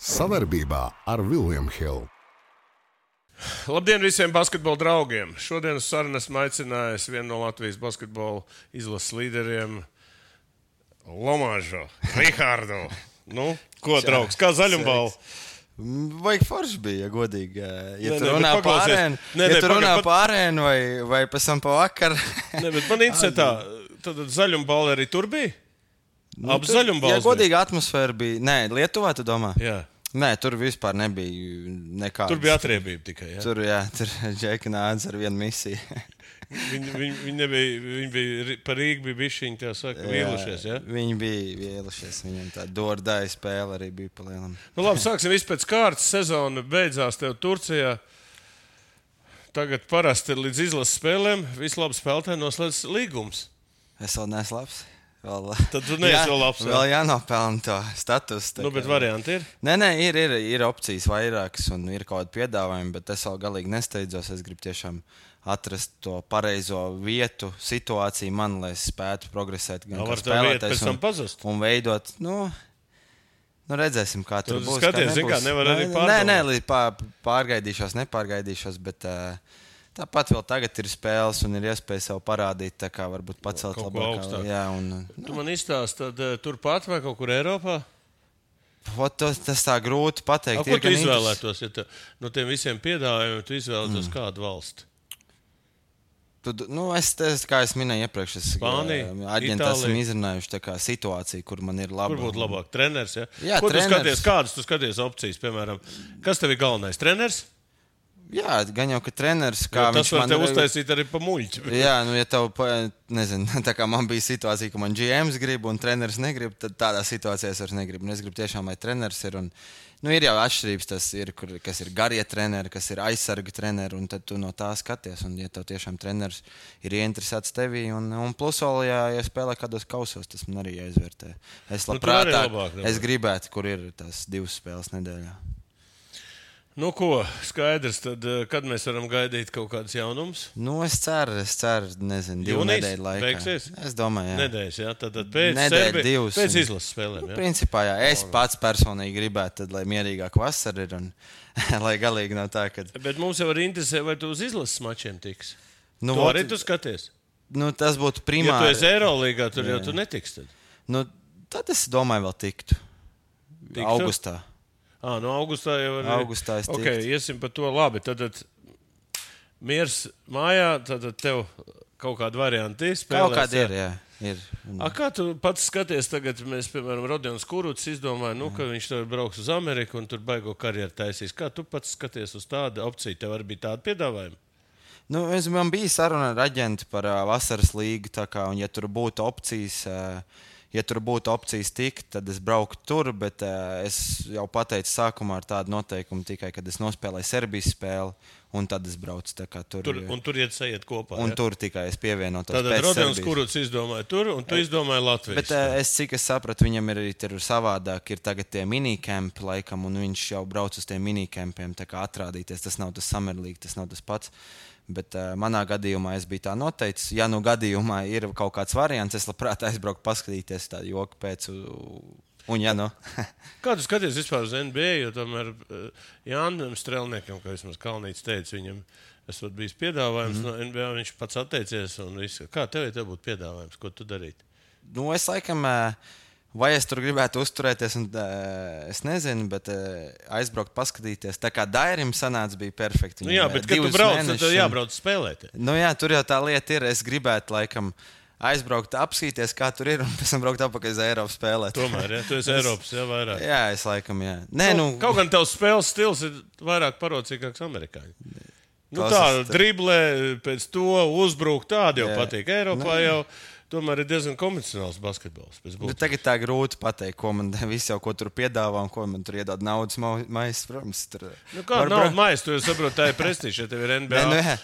Sadarbībā ar William Hill. Labdien visiem basketbola draugiem! Šodien uz sarunu esmu aicinājis vienu no Latvijas basketbola izlases līderiem, Lomāžu, Rihardu. Nu, ko, draugs, kā zaļumbala? Vajag forši bija, ja godīgi. Ja tu runā pa arēnu vai pēc tam pa vakaru. Man interesē tā, tad zaļumbala arī tur bija? Ap zaļumbalas bija? Ja godīgi atmosfēra bija. Nē, Lietuvā tu domā? Jā. Nē, tur vispār nebija nekādas. Tur bija atriebība tikai, jā? Tur Džeki nāca ar vienu misiju. Viņi bija par Rīgu bija bišķiņi, tā saka, vīlušies, jā? Viņi bija vīlušies, viņam tā dordāja spēle arī bija pa lielam. Nu labi, sāksim visu pēc kārtas. Sezona beidzās tev Turcijā. Tagad parasti ir līdz izlases spēlēm. Visi labi spēlētāji noslēdz līgums. Es vēl neesmu labs. Tad tu neesi vēl labs. Vēl jānopelna to statusu. Nu, bet varianti ir? Nē, ir opcijas vairākas un ir kaut kādi piedāvājumi, bet es vēl galīgi nesteidzos. Es gribu tiešām atrast to pareizo vietu, situāciju man, lai es spētu progresēt gan kā spēlētājs un veidot, nu redzēsim, kā tur būs. Skaties, zin kā, nevar arī pārdomāt. Nepārgaidīšos, bet tāpat vēl tagad ir spēles un ir iespēja sev parādīt, tā kā varbūt pacelt labāk. Tu man izstāst, tad turpat vai kaut kur Eiropā? Tas tā grūti pateikt. Ko tu izvēlētos, ja no tiem visiem piedāvājumiem tu izvēlētos kādu valsti? Kā es minēju iepriekš, aģenti esam izrunājuši situāciju, kur man ir laba. Kur būtu labāk? Treneris, ja? Jā, ko treneris. Kādas tu skaties opcijas, piemēram? Kas tev ir galvenais? Treneris? Jā, gan jau, ka treneris, tas var tev uztaisīt arī pa muļķi. Jā, ja tev, nezinu, tā kā man bija situācija, ka man GMs grib un treneris negrib, tad tādā situācijā es vairs negribu. Un es gribu tiešām, lai treneris ir. Un ir jau atšķirības, kas ir garie treneri, kas ir aizsarga treneri, un tad tu no tā skaties. Un ja tev tiešām treneris ir ieinteresēts tevī, un plus vēl, ja spēlē kādos kausos, tas man arī jāizvērtē. Es labprāt, es gribētu, kur ir tās 2 spēles nedēļā. Nu ko, skaidrs, tad kad mēs varam gaidīt kaut kādas jaunumus? Es ceru, nezinu, 2 nedēļu laikā. Beigsies? Es domāju, jā. Nedēļas, jā, tad pēc izlases spēlēm, jā? Principā, jā, es pats personīgi gribētu, tad, lai mierīgāk vasara ir un lai galīgi nav tā, ka... Bet mums jau arī interesē, vai tu uz izlases mačiem tiks? Tu arī tu skaties? Tas būtu primāri. Ja tu esi Eirolīgā, tur jau tu netiks tad? Tad es domāju vēl tiktu. Augustā. Augustā jau arī. Augustā es tiktu. Ok, iesim par to labi. Tad miers mājā, tad tev kaut kāda varianti spēlēs. Kaut kāda ir, jā. Ir. Kā tu pats skaties tagad, mēs, piemēram, Rodions Kuruts izdomāja, ka viņš tev brauks uz Ameriku un tur baigo karjeru taisīs. Kā tu pats skaties uz tādu opciju? Tev arī bija tāda piedāvājuma? Man bija saruna ar aģentu par vasaras līgu, un ja tur būtu opcijas tikt, tad es brauktu tur, bet es jau pateicu sākumā ar tādu noteikumu tikai, kad es nospēlēju Serbijas spēli, un tad es braucu tur. Un tur iet kopā, un tur tikai es pievienotos pēc Serbijas. Tātad Rodions Kuruts izdomāja tur, un tu izdomāji Latvijas. Bet cik es sapratu, viņam ir arī savādāk, ir tagad tie minikempi laikam, un viņš jau brauc uz tiem minikempiem, tā kā atrādīties, tas nav tas Summer League, tas nav tas pats. Bet manā gadījumā es biju tā noteicis. Ja gadījumā ir kaut kāds variants, es labprāt aizbraucu paskatīties tādu joku pēc. Kā tu skaties vispār uz NBA, jo tomēr Jānim Strelniekam, kā vismaz Kalnīts teica, viņam esot bijis piedāvājums no NBA, viņš pats atteicies un viss. Kā tev būtu piedāvājums, ko tu darīt? Es laikam... Vai es tur gribētu uzturēties, es nezinu, bet aizbraukt, paskatīties. Tā kā Dairim sanāca, bija perfekti. Jā, bet kad tu brauc, tad jābrauc spēlēt. Jā, tur jau tā lieta ir. Es gribētu, laikam, aizbraukt, apskatīties, kā tur ir, un pēc tam braukt atpakaļ uz Eiropu spēlēt. Tomēr, jā, tu esi Eiropas, jā, vairāk. Jā, es laikam, jā. Kaut gan tavs spēles stils ir vairāk parocīgāks amerikāņi. Tā driblē, pēc to uzbruk, tādi jau patīk. Eiropā jau... Tomēr ir diezgan konvencionāls basketbols. Tagad tā grūti pateikt, ko man visi jau ko tur piedāvā un ko man tur iedod naudas maizes. Protams, kāda naudas maizes? Tu jau saproti, tā ir prestīža, ja tev ir NBA.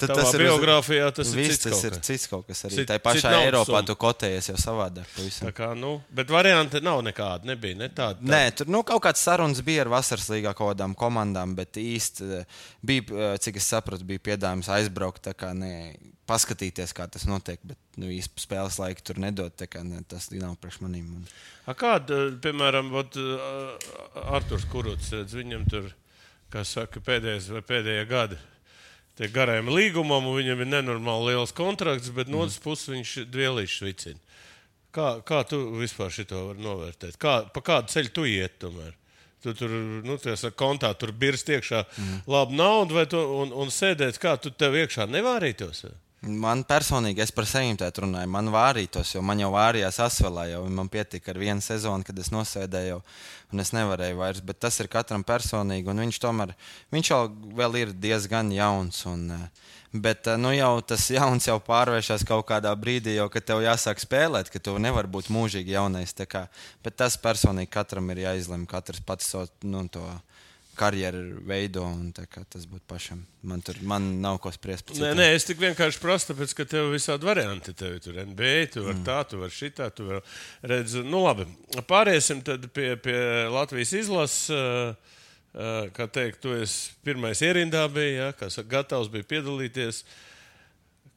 Tavā biogrāfijā tas ir cits kaut kas. Tas ir cits kaut kas arī. Tā pašā Eiropā tu kotējies jau savādāk. Tā kā, bet varianti nav nekāda, nebija, ne tāda. Nē, tur kaut kāds sarunas bija ar vasaras līgā kaut kādām komandām, bet īsti bija, cik es sapratu, bija piedāvājums aizbraukt, tā kā paskatīties, kā tas notiek, bet īsti spēles laika tur nedod. Tas nav priekš manīm. Kāda, piemēram, Arturs Kuruts, viņam tur, kā saka, pēdējie gadi tie garajam līgumam, un viņam ir nenormāli liels kontrakts, bet no otras puses viņš dvielīšs vicina. Kā tu vispār šito var novērtēt? Pa kādu ceļu tu iet tomēr? Tu tur, kontā tur birst iekšā labu naudu un sēdēt, kā tu tev iekšā nevārītos? Man personīgi, es par sevi tēt runāju, man vārītos, jo man jau vārījās asvelā, jau man pietika ar vienu sezonu, kad es nosēdēju, un es nevarēju vairs, bet tas ir katram personīgi, un viņš jau vēl ir diezgan jauns, bet jau tas jauns jau pārvēršas kaut kādā brīdī, jau, kad tev jāsāk spēlēt, ka tu nevari būt mūžīgi jaunais, bet tas personīgi katram ir jāizlem, katrs pats to karjeru veido, un tas būtu pašam. Man nav ko spriest. Nē, es tik vienkārši prasu, tāpēc, ka tev visādi varianti. Tev tur NBA, tu vari tā, tu vari šitā, tu vari redz. Labi, pāriesim tad pie Latvijas izlases. Kā teikt, tu esi pirmais ierindā bija, gatavs bija piedalīties.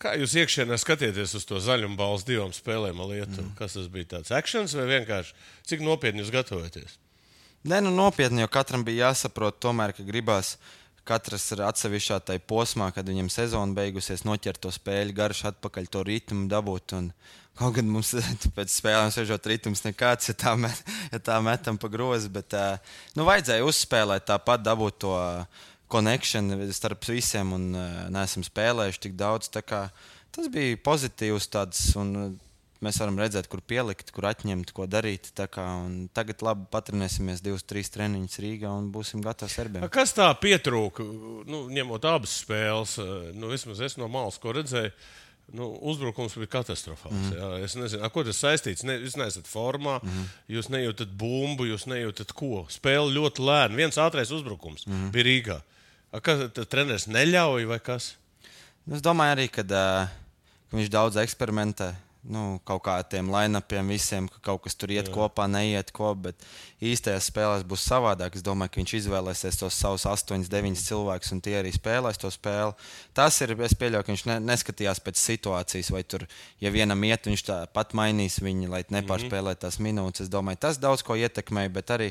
Kā jūs iekšienē skatieties uz to zaļumballes divām spēlēm ar Lietuvu? Kas tas bija tāds actions vai vienkārši? Cik nopietni jūs gatavojaties? Nē, nopietni, jo katram bija jāsaprot tomēr, ka gribās katrs ir atsevišķā tai posmā, kad viņam sezona beigusies, noķert to spēļu, garš atpakaļ to ritmu dabūt. Kaut gan mums pēc spēlēm sežot ritms nekāds, ja tā metam pa grozi, bet vajadzēja uzspēlēt tāpat, dabūt to connection starp visiem un neesam spēlējuši tik daudz. Tas bija pozitīvs tāds un mēs varam redzēt, kur pielikt, kur atņemt, ko darīt. Tagad labi patrenēsimies 2-3 treniņus Rīgā un būsim gatavi Serbijam. Kas tā pietrūka, ņemot abas spēles? Vismaz es no malas, ko redzēju, uzbrukums bija katastrofāls. Jā. Es nezinu, ko tas saistīts. Jūs neesat formā, jūs nejūtat bumbu, jūs nejūtat ko. Spēle ļoti lēna. Viens ātrais uzbrukums bija Rīgā. Kas treneris neļauj vai kas? Es domāju arī, ka viņš daudz eksperimentē. Kaut kā tiem line-upiem visiem, ka kaut kas tur iet kopā, neiet kopā, bet īstajās spēlēs būs savādāk. Es domāju, ka viņš izvēlēsies tos savus 8-9 cilvēkus, un tie arī spēlēs to spēli. Tas ir, es pieļauju, ka viņš neskatījās pēc situācijas, vai tur, ja vienam iet, viņš tāpat mainīs viņu, lai nepārspēlē tās minūtes. Es domāju, tas daudz ko ietekmēja, bet arī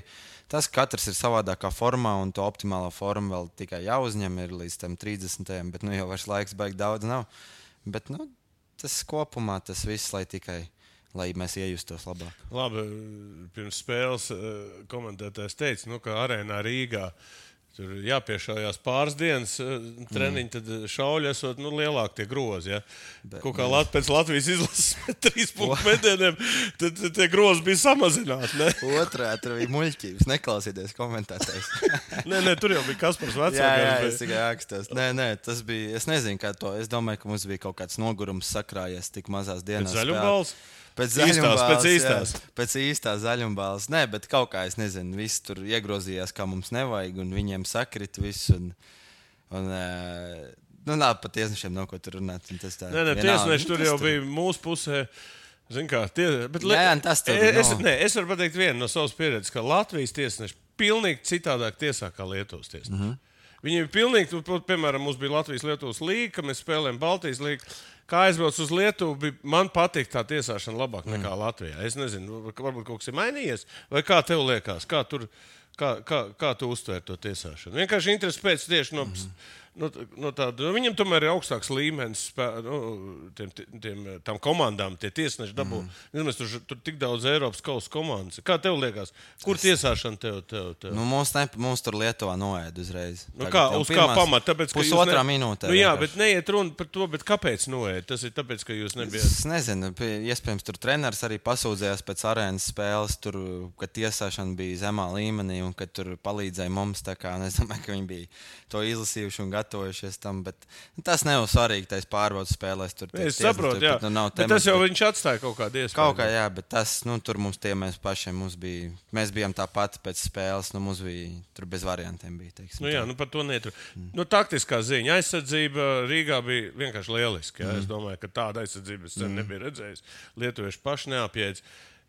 tas, ka katrs ir savādākā formā, un to optimālā forma vēl tikai jāuzņem ir līdz tam 30. Bet jau vairs laiks baigi daudz nav. Bet, tas kopumā tas viss, lai mēs iejustos labāk. Labi, pirms spēles komentētājs teica, ka arēnā Rīgā tur jāpiešaujās pāris dienas treniņi, tad šauļi esot lielāk tie grozi. Ja? Kaut kā pēc Latvijas izlases 3 punktu metieniem, tad tie grozi bija samazināti. Ne? Otrā, tur bija muļķības, neklausieties komentētājs. Nē, tur jau bija Kaspars vecākais. Jā, es tikai ākstos. Nē, tas bija, es nezinu, kā to, es domāju, ka mums bija kaut kāds nogurums sakrājies tik mazās dienās. Pēc zaļumballes? Pēc īstās zaļumballes. Nē, bet kaut kā, es nezinu, viss tur iegrozījās, kā mums nevajag, un viņiem sakrita viss. Nav pat tiesnešiem nav ko tur runāt. Nē, tiesneši tur jau bija mūsu pusē. Zin kā, es varu pateikt vienu no savas pieredzes, ka Latvijas tiesneši pilnīgi citādāk tiesā kā Lietuvas tiesneši. Viņi ir pilnīgi, piemēram, mums bija Latvijas-Lietuvas līga, mēs spēlējam Baltijas līgu. Kā aizbraucu uz Lietuvu, man patīk tā tiesāšana labāk nekā Latvijā. Es nezinu, varbūt kaut kas ir mainījies, vai kā tev liekas, kā tu uztvēri to tiesāšanu? Vienkārši interesi pēc tieši no tāda, viņam tomēr ir augstāks līmenis tām komandām, tie tiesneši dabū. Mēs tur tik daudz Eiropas kausa komandas. Kā tev liekas? Kur tiesāšana tev? Mums tur Lietuvā noēd uzreiz. Uz kā pamata? Pusotrā minūtē. Jā, bet neiet runa par to, bet kāpēc noēd? Tas ir tāpēc, ka jūs nebijāt. Es nezinu, iespējams tur treneris arī pasūdzējās pēc arēnas spēles, tur, kad tiesāšana bija zemā līmenī un kad tur palīdzēja mums, tā kā es domāju, ka viņi bija to izlasījuši un gatojušies tam, bet tas nav svarīgi, tais pārbaudas spēlēs. Es saprotu, jā. Bet tas jau viņš atstāja kaut kādu iespēju. Kaut kā, jā, bet tas, tur mums mēs pašiem, mēs bijām tāpat pēc spēles, mums bija, tur bez variantiem bija, teiksim. Jā, par to netur. Taktiskā ziņa, aizsardzība Rīgā bija vienkārši lieliski, jā. Es domāju, ka tāda aizsardzība es nebija redzējis. Lietuvieši paši neapjēdz.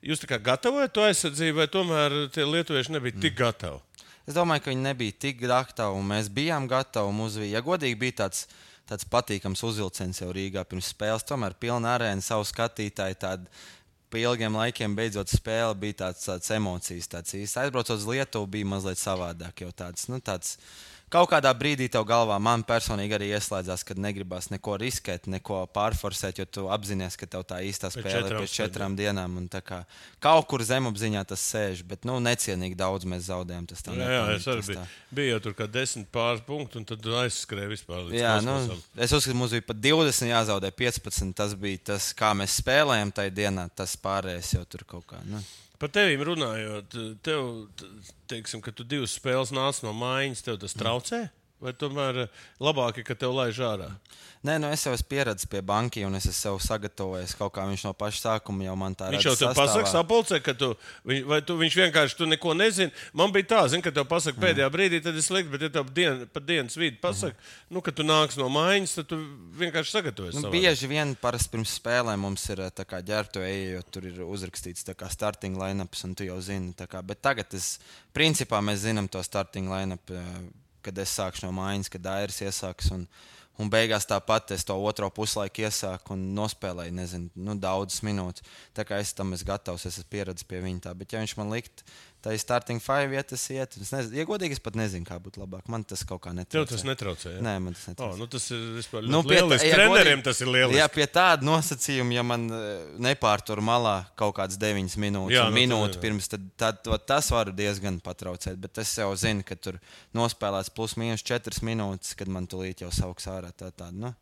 Jūs tā kā gatavojat to aizsardzību, vai tomēr tie lietuvieši nebija tik gatavi? Es domāju, ka viņi nebija tik gatavi, un mēs bijām gatavi. Ja godīgi bija tāds tāds patīkams uzvilciens jau Rīgā pirms spēles. Tomēr pilna arēna, savu skatītāju, tādu pa ilgiem laikiem beidzot spēle bija tāds emocijas. Aizbraucot uz Lietuvu bija mazliet savādāk jau tāds. Kaut kādā brīdī tev galvā man personīgi arī ieslēdzās, kad negribās neko riskēt, neko pārforsēt, jo tu apzinājies, ka tev tā īstā spēle ir pēc 4 dienām. Kaut kur zemapziņā tas sēž, bet necienīgi daudz mēs zaudējām. Jā, es arī biju jau tur kā 10 pāris punktu, un tad aizskrēju vispār līdz kosmosam. Es uzskatu, mums bija pat 20 jāzaudē 15. Tas bija tas, kā mēs spēlējam tajā dienā, tas pārējais jau tur kaut kā. Par tevīm runājot, teiksim, ka tu 2 spēles nāc no mājiņas, tev tas traucē? Vai tomēr labāk, ka tev laiž ārā? Nē, es jau esmu pieredzējis pie banki, un es esmu sev sagatavojis kaut kā viņš no paša sākuma jau man tā redz. Viņš jau tev pasaka sapulcē, ka viņš vienkārši tu neko nezini. Man bija tā, ka tev pasaka pēdējā brīdī, tad es liktu, bet ja tev pa dienas vidi pasaka, ka tu nāks no mājiņas, tad tu vienkārši sagatavojies. Bieži vien parasti pirms spēlēm mums ir ģērbtu eja, jo tur ir uzrakstīts starting line-ups, un tu jau zini. Bet tagad principā mēs zinām to starting line-up, kad es sākšu no mājiņas, kad Airis iesāks. Un beigās tāpat es to otro puslaiku iesāku un nospēlēju, nezinu, daudzas minūtes. Tā kā es tam esmu gatavs, es esmu pieredzējis pie viņa tā. Bet ja viņš man likt, tā ir starting 5 vietas iet. Ja godīgi, es pat nezinu, kā būtu labāk. Man tas kaut kā netraucē. Tev tas netraucē, ja? Nē, man tas netraucē. Tas ir vispār lieliski. Treneriem tas ir lieliski. Jā, pie tāda nosacījuma, ja man nepārtur malā kaut kāds 9 minūtes, minūti pirms, tad tas var diezgan patraucēt. Bet es jau zinu, ka tur nospēlēts plus mīnus 4 minūtes, kad man tulīt jau sauks ārā tāda.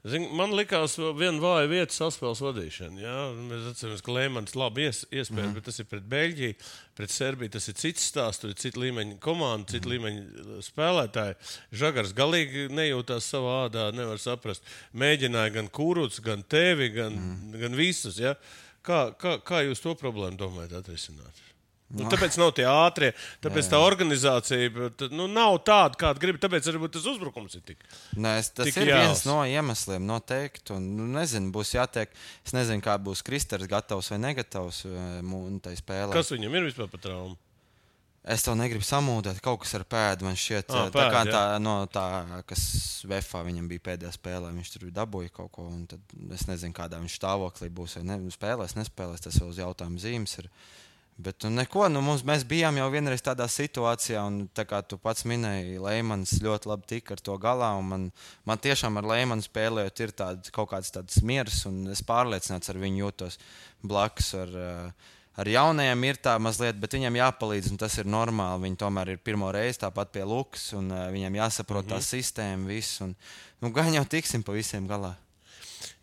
Man likās, viena vāja vieta saspēles vadīšana. Jā? Mēs atceramies, ka Leimans labi iespēja, bet tas ir pret Beļģiju, pret Serbiju. Tas ir cits stāsts, tur ir cita līmeņa komanda, cita līmeņa spēlētāji. Žagars galīgi nejūtās savā ādā, nevar saprast. Mēģināja gan Kūruts, gan tevi, gan visus. Ja? Kā jūs to problēmu domājat atrisināt? Tāpēc nav tie ātrie, tāpēc tā organizācija nav tāda, kāda grib. Tāpēc arī tas uzbrukums ir tik. Tas ir viens no iemesliem, noteikti. Nezinu, būs jātiek. Es nezinu, kā būs Kristers gatavs vai negatavs tai spēlē. Kas viņam ir vispār par traumu? Es to negribu samūdēt. Kaut kas ar pēdu man šķiet. Tā, kas Vefā viņam bija pēdējā spēlē. Viņš tur dabūja kaut ko. Es nezinu, kādā viņš stāvoklī būs. Spēlēs, nespēlēs. Tas vēl uz jautājumu zīmes ir. Bet neko, mēs bijām jau vienreiz tādā situācijā, un tā kā tu pats minēji, Leimans ļoti labi tika ar to galā. Man tiešām ar Leimanu spēlējot ir kaut kāds tāds miers, un es pārliecināts ar viņu jūtos blakus. Ar jaunajiem ir tā mazliet, bet viņiem jāpalīdz, un tas ir normāli. Viņi tomēr ir pirmo reizi tāpat pie Lukas, un viņiem jāsaprot tā sistēma, viss. Gan jau tiksim pa visiem galā.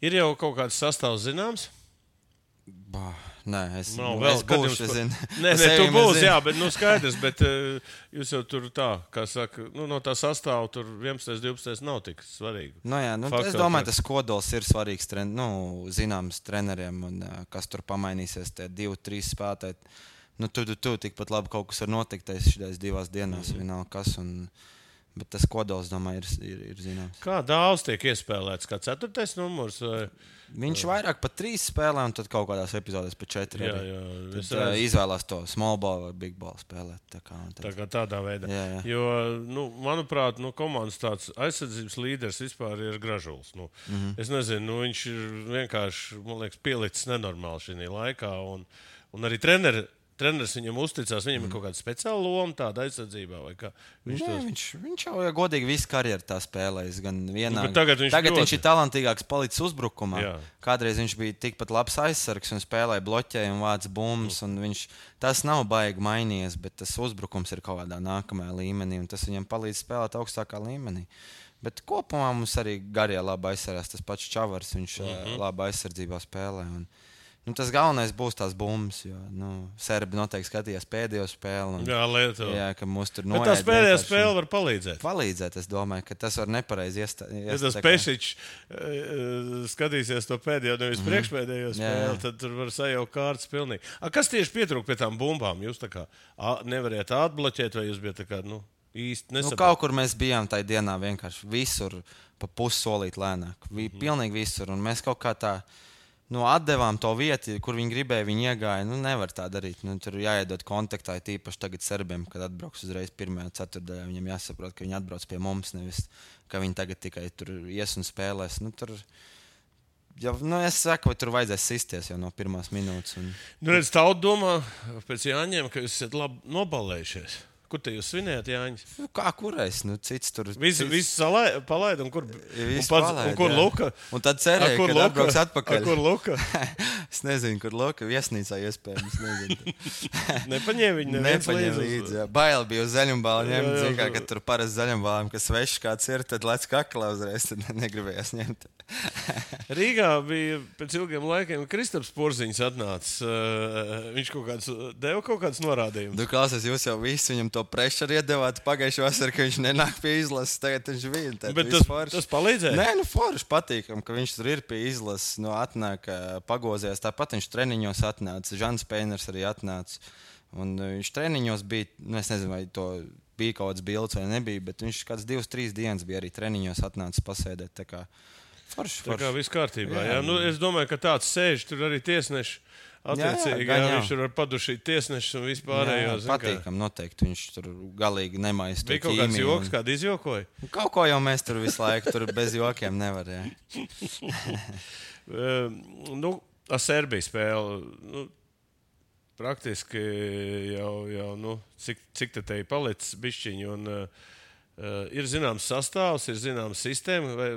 Ir jau kaut kāds sastāvs zināms? Nē, es būšu. Nē, tu būsi, jā, bet skaidrs. Bet jūs jau tur tā, kā saka, no tā sastāva tur 11, 12 nav tik svarīgi. Es domāju, tas kodols ir svarīgs zināms treneriem, un kas tur pamainīsies, tie 2-3 spēlētāji. Tu tikpat labi kaut kas var notikt šajās 2 dienās, vienalga kas. Bet tas kodols, domāju, ir zināms. Kā daudz tiek iespēlēts? Kā 4. numurs? Viņš vairāk pa 3 spēlē, un tad kaut kādās epizodēs pa 4. Jā, izvēlās to small ball vai big ball spēlēt. Tā kā tādā veidā. Jā. Jo, manuprāt, komandas tāds aizsardzības līderis vispār ir Gražuls. Es nezinu, viņš ir vienkārši, man liekas, pielicis nenormāli šajā laikā. Un arī treneris viņam uzticās, viņam ir kaut kāda speciāla loma tāda aizsardzībā, vai kā? Viņš jau godīgi visu karjeru tā spēlējis, gan vienā. Tagad viņš ir talantīgāks palicis uzbrukumā. Jā. Kādreiz viņš bija tikpat labs aizsargs un spēlēja bloķēju un vāc bumbas, un tas nav baigi mainījies, bet tas uzbrukums ir kaut kādā nākamajā līmenī, un tas viņam palīdz spēlēt augstākā līmenī. Bet kopumā mums arī garie labi aizsargās, tas pats Čavars, viņš labi aizsardzībā spēlē. Tas galvenais būs tās bumbas, jo Serbi noteikti skatījās pēdējo spēli. Jā, Lietuva. Jā, ka mums tur noiet. Bet tā pēdējā spēle var palīdzēt. Palīdzēt, es domāju, ka tas var nepareizi ja tas Pešičs skatīsies to pēdējo, nevis priekšpēdējo spēli, tad tur var sajaukt kārtas pilnīgi. Kas tieši pietrūk pie tām bumbām? Jūs tā kā nevarējāt atbloķēt, vai jūs bijat tā kā, īsti nesaprāt? Kaut kur mēs bijām tajā dienā vienkārši visur pa pussolīt lēnāk. Pilnīgi visur, un mēs kaut kā tā. atdevām to vietu, kur viņi gribēja, viņi iegāja. Nevar tā darīt. Tur jāiedod kontaktā, tīpaši tagad serbiem, kad atbrauks uzreiz pirmajā ceturtdaļā. Viņam jāsaprot, ka viņi atbrauc pie mums, nevis ka viņi tagad tikai tur ies un spēlēs. Es saku, vai tur vajadzēs sisties jau no pirmās minūtes. Redz, tauta domā pēc Jāņiem, ka jūs esat labi nobalējušies. Kur te jūs svinējat, Jāņas? Kā kurais? Cits tur... Visu palaid, un kur... Un kur Luka? Un tad cerēja, ka atbrauks atpakaļ. Kur Luka? Es nezinu, kur Luka. Viesnīcā iespējams. Nepaņēma viņu neviens līdzi. Bail bija uz zaļumbālu ņemt. Zikā, ka tur parasti zaļumbālām, kas svešs kāds ir, tad lec kaklā uzreiz, tad negribējās ņemt. Rīgā bija pēc ilgiem laikiem Kristaps Porziņš atnācis. Viņš deva kaut kāds norādījumus. Klausies, jūs jau visi viņam to prešaru iedevāt pagājušajā vasarā, ka viņš nenāk pie izlases. Tagad viņš bija. Bet tas palīdzēja? Nē, forši patīkam, ka viņš tur ir pie izlases. Atnāk pagozījās. Tāpat viņš treniņos atnāca. Žans Peiners arī atnāca. Un viņš treniņos bija, es nezinu, vai to bija kaut kāds bilds vai nebija, bet viņš kāds 2-3 dienas bija arī treniņos atnācis pasēdēt. Tā kā forši. Tā kā viss kārtībā. Jā. Es domāju, ka tāds sēž tur arī tiesneši. Attiecīgi, viņš tur var padušīt tiesnešus un vispārējo. Patīkam, noteikti. Viņš tur galīgi nemaisa to ķīmiju. Bija kaut kāds joks, kādu izjokoja? Kaut ko jau mēs tur visu laiku, tur bez jokiem nevar, jā. Serbija spēle, praktiski jau cik te ir palicis bišķiņi, un ir zināms sastāvs, ir zināms sistēma, vai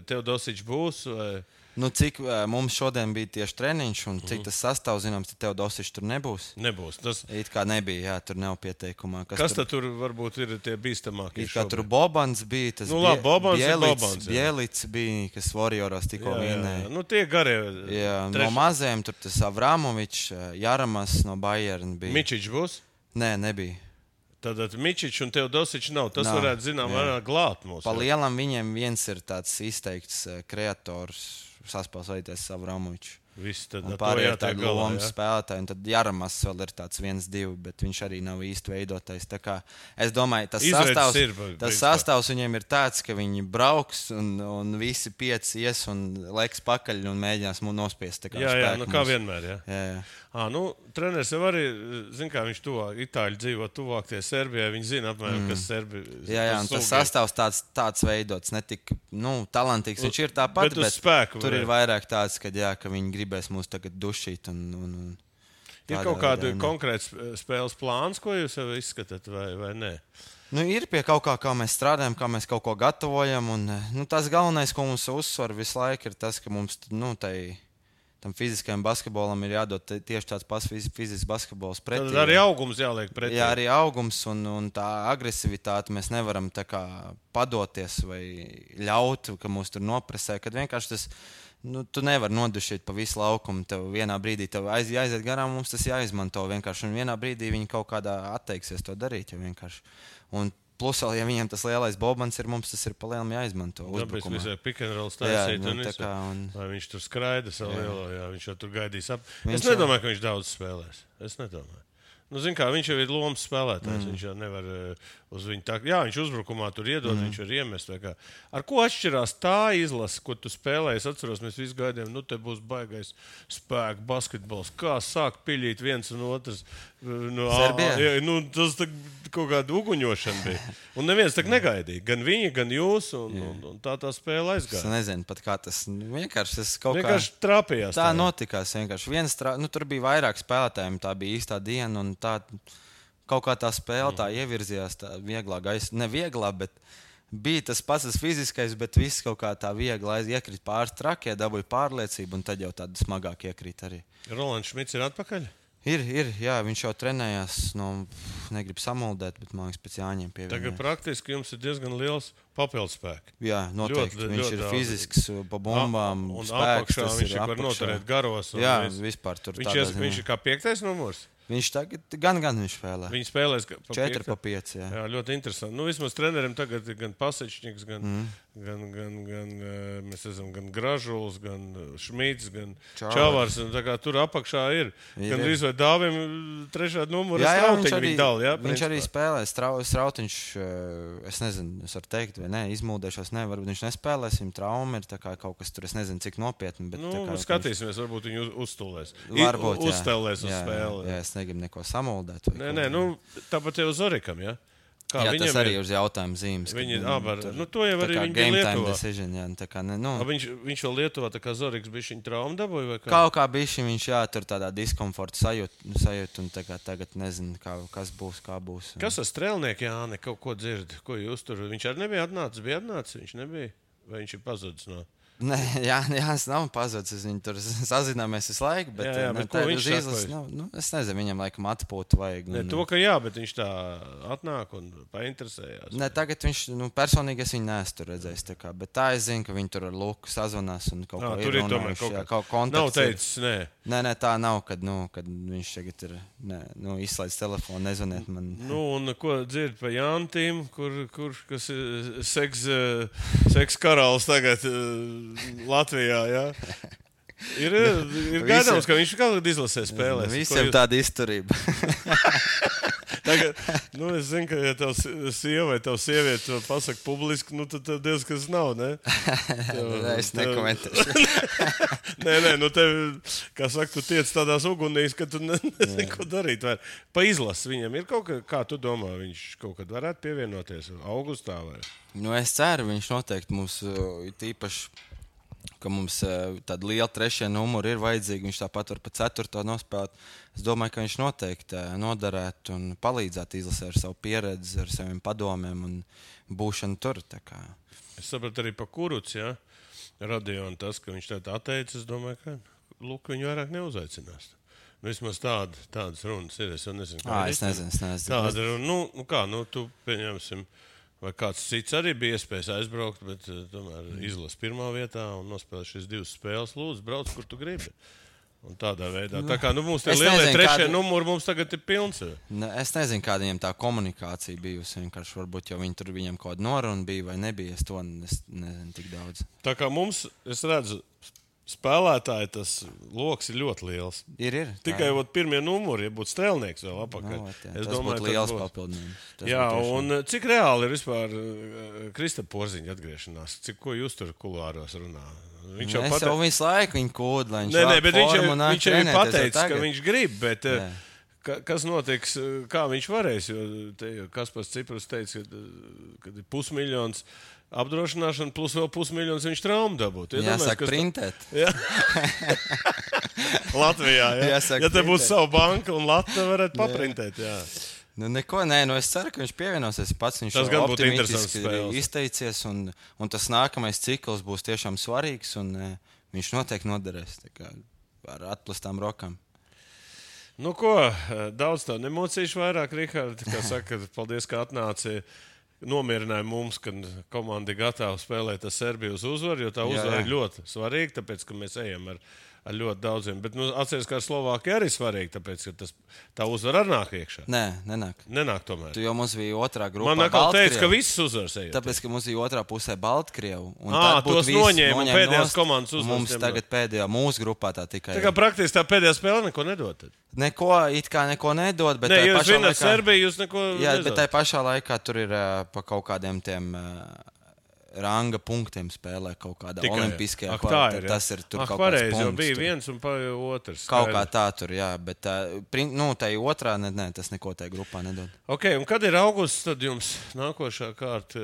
Teodosičs būs, vai... Cik mums šodien bija tieši treniņš, un cik tas sastāvs, zināms, tad Teodosičs tur nebūs. Nebūs. It kā nebija, jā, tur nav pieteikumā. Kas tur varbūt ir tie bīstamākie? It kā tur Bobans bija, tas Bielits bija, kas Warrioros tikko vienēja. Tie garie. Jā, no maziem tur tas Avramovičs, Jaramas no Bayern bija. Mičičs būs? Nē, nebija. Tātad Mičičs un Teodosičs nav. Tas varētu, zinām, glāt mūs. Pa lielam viņiem viens ir tāds izteikts kreators, saspēlēties Avramovičs. Pārējie ir tādi lomas spēlētāji, un tad Jaramas vēl ir tāds 1-2, bet viņš arī nav īsti veidotais. Tā kā es domāju, tas sastāvs viņiem ir tāds, ka viņi brauks un visi 5 ies un leks pakaļ un mēģinās nospiest. Jā, kā vienmēr, jā. Treneris jau arī, kā viņš Itāļi dzīvo tuvāk tie Serbijai, viņi zina apmēram, kas Serbi. Jā, un tas sastāvs tāds veidots, ne tik, talantīgs viņš ir tāpat, bet tur ir vairāk tāds, ka viņi gribēs mūs tagad dušīt. Ir kaut kāda konkrēta spēles plāns, ko jūs jau izskatāt, vai nē? Ir pie kaut kā mēs strādājam, kā mēs kaut ko gatavojam, un tas galvenais, ko mums uzsver visu laiku, ir tas, ka mums, tam fiziskajam basketbolam ir jādod tieši tāds pats fizisks basketbols pretī. Tad arī augums jāliek pretī. Jā, arī augums un tā agresivitāte mēs nevaram tā kā padoties vai ļaut, ka mūs tur nopresē, kad vienkārši tas, tu nevari nodušīt pa visu laukumu, tev vienā brīdī tev jāiziet garām, mums tas jāizmanto vienkārši, un vienā brīdī viņi kaut kādā atteiksies to darīt, jo vienkārši. Un plus, ja viņiem tas lielais Bobans ir, mums tas ir pa lielam jāizmanto uzbrukumā. Tāpēc visai pick and roll stāstīt vai viņš tur skraida savu lielo, viņš jau tur gaidīs ap. Es nedomāju, ka viņš daudz spēlēs. Es nedomāju. Viņš jau ir lomas spēlētājs, viņš jau nevar uz viņu tā. Jā, viņš uzbrukumā tur iedod, viņš var iemest. Ar ko atšķirās tā izlase, ko tu spēlēji? Es atceros, mēs visi gaidījām, te būs baigais spēku basketbols. Kā sāk piļīt viens un otrs? Tas kaut kāda uguņošana bija. Un neviens tak negaidīja. Gan viņi, gan jūs, un tā spēle aizgāja. Es nezinu pat kā tas vienkārši trāpījās. Tā notikās vienkārši. Tur bija vairāk spēlētājiem, tā bija īstā diena, un tā kaut kā tā spēle tā ievirzījās tā vieglā gaisa. Ne vieglā, bet bija tas pats tas fiziskais, bet viss kaut kā tā viegli iekrīt pāris trakie, dabūja pārliecību, un tad jau tāda smagāk iekrīt arī. Rolands Šmits ir atpakaļ? Ir, jā, viņš jau trenējās, negribu samuldēt, bet man liekas pēc Jāņiem pievienojās. Tagad praktiski jums ir diezgan liels papildspēks. Jā, noteikti. Viņš ir fizisks, pa bumbām, un spēks. Un viņš ir var noturēt garos. Jā, vispār tur viņš ir kā 5. numurs? Viņš tagad gan viņš spēlē. Viņš spēlēs 4 pa 5. Jā, ļoti interesanti. Vismaz treneriem tagad ir gan Pasečņiks, gan mēs esam gan Gražuls, gan Šmīts, gan Čavars. Tur apakšā ir. Gan drīz vai Dāvim trešā numura Strautiņu viņi dala. Jā, viņš arī spēlē. Strautiņš, es nezinu, es varu teikt, vai ne, izmūdēšos, ne, varbūt viņš nespēlēs, viņam trauma ir tā kā kaut kas tur, es nezinu, cik nopietni. Bet, skatīsimies, varbūt viņu uzstulēs. Varbūt, uzstelēs uz spēli. Jā, es negribu neko samuldēt. Nē, tāpat jau Zorikam, jā. Kā jā, tas arī ir uz jautājumu zīmes. To jau arī viņi bija Lietuvā. Decision, jā, viņš vēl Lietuvā, tā kā Zoriks bija viņa trauma dabūja vai kā? Kaut kā bija viņš, jā, tur tādā diskomforta sajūt un tagad nezinu, kas būs, kā būs. Kas ar strēlnieku, Jāni, kaut ko dzird? Ko jūs tur? Viņš arī nebija atnācis, viņš nebija? Vai viņš ir pazudis no... Nē, Jānis nav pazudis. Viņš tur sazināmies visu laiku. Bet, bet ko viņš saka? Es nezinu, viņam laikam atpūtu vajag. To, ka jā, bet viņš tā atnāk un painteresējās. Ne, tagad viņš, personīgi es viņu neesmu tur redzējis. Bet tā es zinu, ka viņi tur ar Luku sazvanās un kaut ko ir runājuši. Kaut kontakts. Nav teicis, nē. Nē, tā nav, kad viņš tagad ir izslēdz telefonu, nezvaniet man. Un ko dzird pa Jantīm, kas ir seks karalis tagad Latvijā, jā. Ir gaidāms, ka viņš kaut kad izlasē spēlēs. Visiem tāda izturība. Tagad, es zinu, ka ja tev sieva vai tev sieviete to pasaka publiski, tad tev diez kas nav, ne? Es nekomentēšu. Nē, tev, kā saka, tu tiec tādās ugunīs, ka tu nezini, ko darīt. Pa izlasu viņam ir kaut kā tu domā, viņš kaut kad varētu pievienoties augustā vai? Es ceru, viņš noteikti mums tīpaši, ka mums tāda liela trešie numuri ir vajadzīga. Viņš tāpat var pa 4. nospēlēt. Es domāju, ka viņš noteikti noderētu un palīdzētu izlasē ar savu pieredzi, ar saviem padomiem un būšanu tur. Es sapratu arī pa Kuruc, jā, Radionu tas, ka viņš tā atteicis. Es domāju, ka Luka viņu vairāk neuzaicinās. Vismaz tādas runas ir. Es jau nezinu, kā es nezinu. Tāda runa, tu pieņemsim. Vai kāds cits arī bija iespējas aizbraukt, bet tomēr izlas pirmā vietā un nospēlē šīs 2 spēles. Lūdzu, brauc, kur tu gribi. Un tādā veidā. Tā kā mums tie lielie trešie numuri mums tagad ir pilns. Es nezinu, kāda viņam tā komunikācija bijusi. Vienkārši varbūt jau viņam kaut kāda noruna bija vai nebija. Es to nezinu tik daudz. Tā kā mums, es redzu, spēlētāji tas loks ir ļoti liels. Ir. Tikai pirmie numuri, ja būtu strēlnieks vēl apakaļ. Es domāju, būtu liels papildinājums. Jā, un cik reāli ir vispār Kristapa Porziņa atgriešanās? Ko jūs tur kulāros runā? Viņš jau visu laiku viņu kūd, lai viņš bet viņš jau ir pateicis, ka viņš grib, bet kas notiks, kā viņš varēs? Jo Kaspars Ciprus teica, ka ir 500 000 apdrošināšana plus vēl 500 000 viņš traumu dabūt. Jāsaka printēt. Jā. Latvijā, jā. Ja te būtu savu banku un Latviju varētu paprintēt, jā. Es ceru, ka viņš pievienosies pats. Viņš tas gan būtu interesants izteicies un tas nākamais cikls būs tiešām svarīgs un viņš noteikti noderēs ar atplastām rokām. Daudz tev nemocīšu vairāk, Rihard, kā saka, paldies, ka atnāci. Nomierināja mums, ka komanda ir gatava spēlēt ar Serbiju uz uzvaru, jo tā uzvara ir ļoti svarīga, tāpēc, ka mēs ejam ar ļoti daudziem. Bet atceries, ka ar Slovākiju arī svarīgi, tāpēc, ka tā uzvara arī nāk iekšā. Nē, nenāk. Nenāk tomēr. Tu jau mums bija otrā grupā. Man atkal teica, ka visas uzvaras ejot. Tāpēc, ka mums bija otrā pusē Baltkrievu. Tos noņēma pēdējās komandas uzvaras. Mums tagad pēdējā mūsu grupā tā tikai. Tā kā praktiski tā pēdējā spēle neko nedod. Neko nedod, bet ne, jūs zināt Serbiju, jūs neko nedod. Bet tai pašā laikā tur ir pa kaut kādiem tiem ranga punktiem spēlē kaut kādā olimpiskajā kvalitātē. Tas ir tur kaut kāds punkts. Jo bija viens un otrs. Kaut kā tā tur, jā, bet tai otrā, tas neko tai grupā nedod. Ok, un kad ir augusts, tad jums nākošā kārta?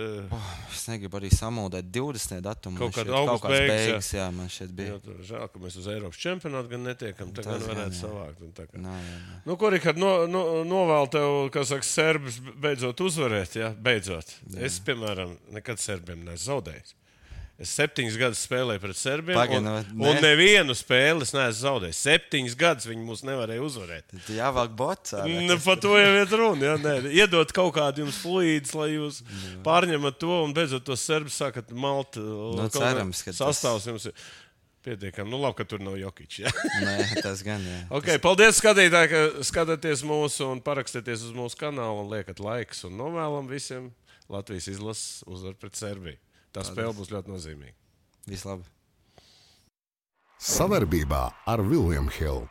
Es negribu arī samuldēt 20. datumu. Kaut kāds beigas, jā, man šeit bija. Žēl, ka mēs uz Eiropas čempionātu gan netiekam, tā gan varētu savākt. Jā. Ko, Rihard, novēl tev, kā saka, serbs beidzot uzvarēt, jā, beidzot. Jā. Es, piemēram, nekad serbiem zaudējis. Es 7 gadus spēlēju pret Serbiem, un nevienu spēli es neesmu zaudējis. 7 gadus viņi mūs nevarēja uzvarēt. Jāvāk bots. Par to jau ir runa. Iedot kaut kādu jums fluīdus, lai jūs pārņemat to, un beidzot tos serbus sākat malt. Cerams, ka sastāvs jums ir pietiekami. Labi, ka tur nav Jokić. Ja? Nē, tas gan, jā. Okay, paldies, skatītāji, ka skatāties mūsu un parakstieties uz mūsu kanālu un liekat laiks un novēlam visiem Latvijas izlases uzvaru pret Serbiju. Tā spēle būs ļoti nozīmīga. Vislabāk. Savarbībā ar William Hill.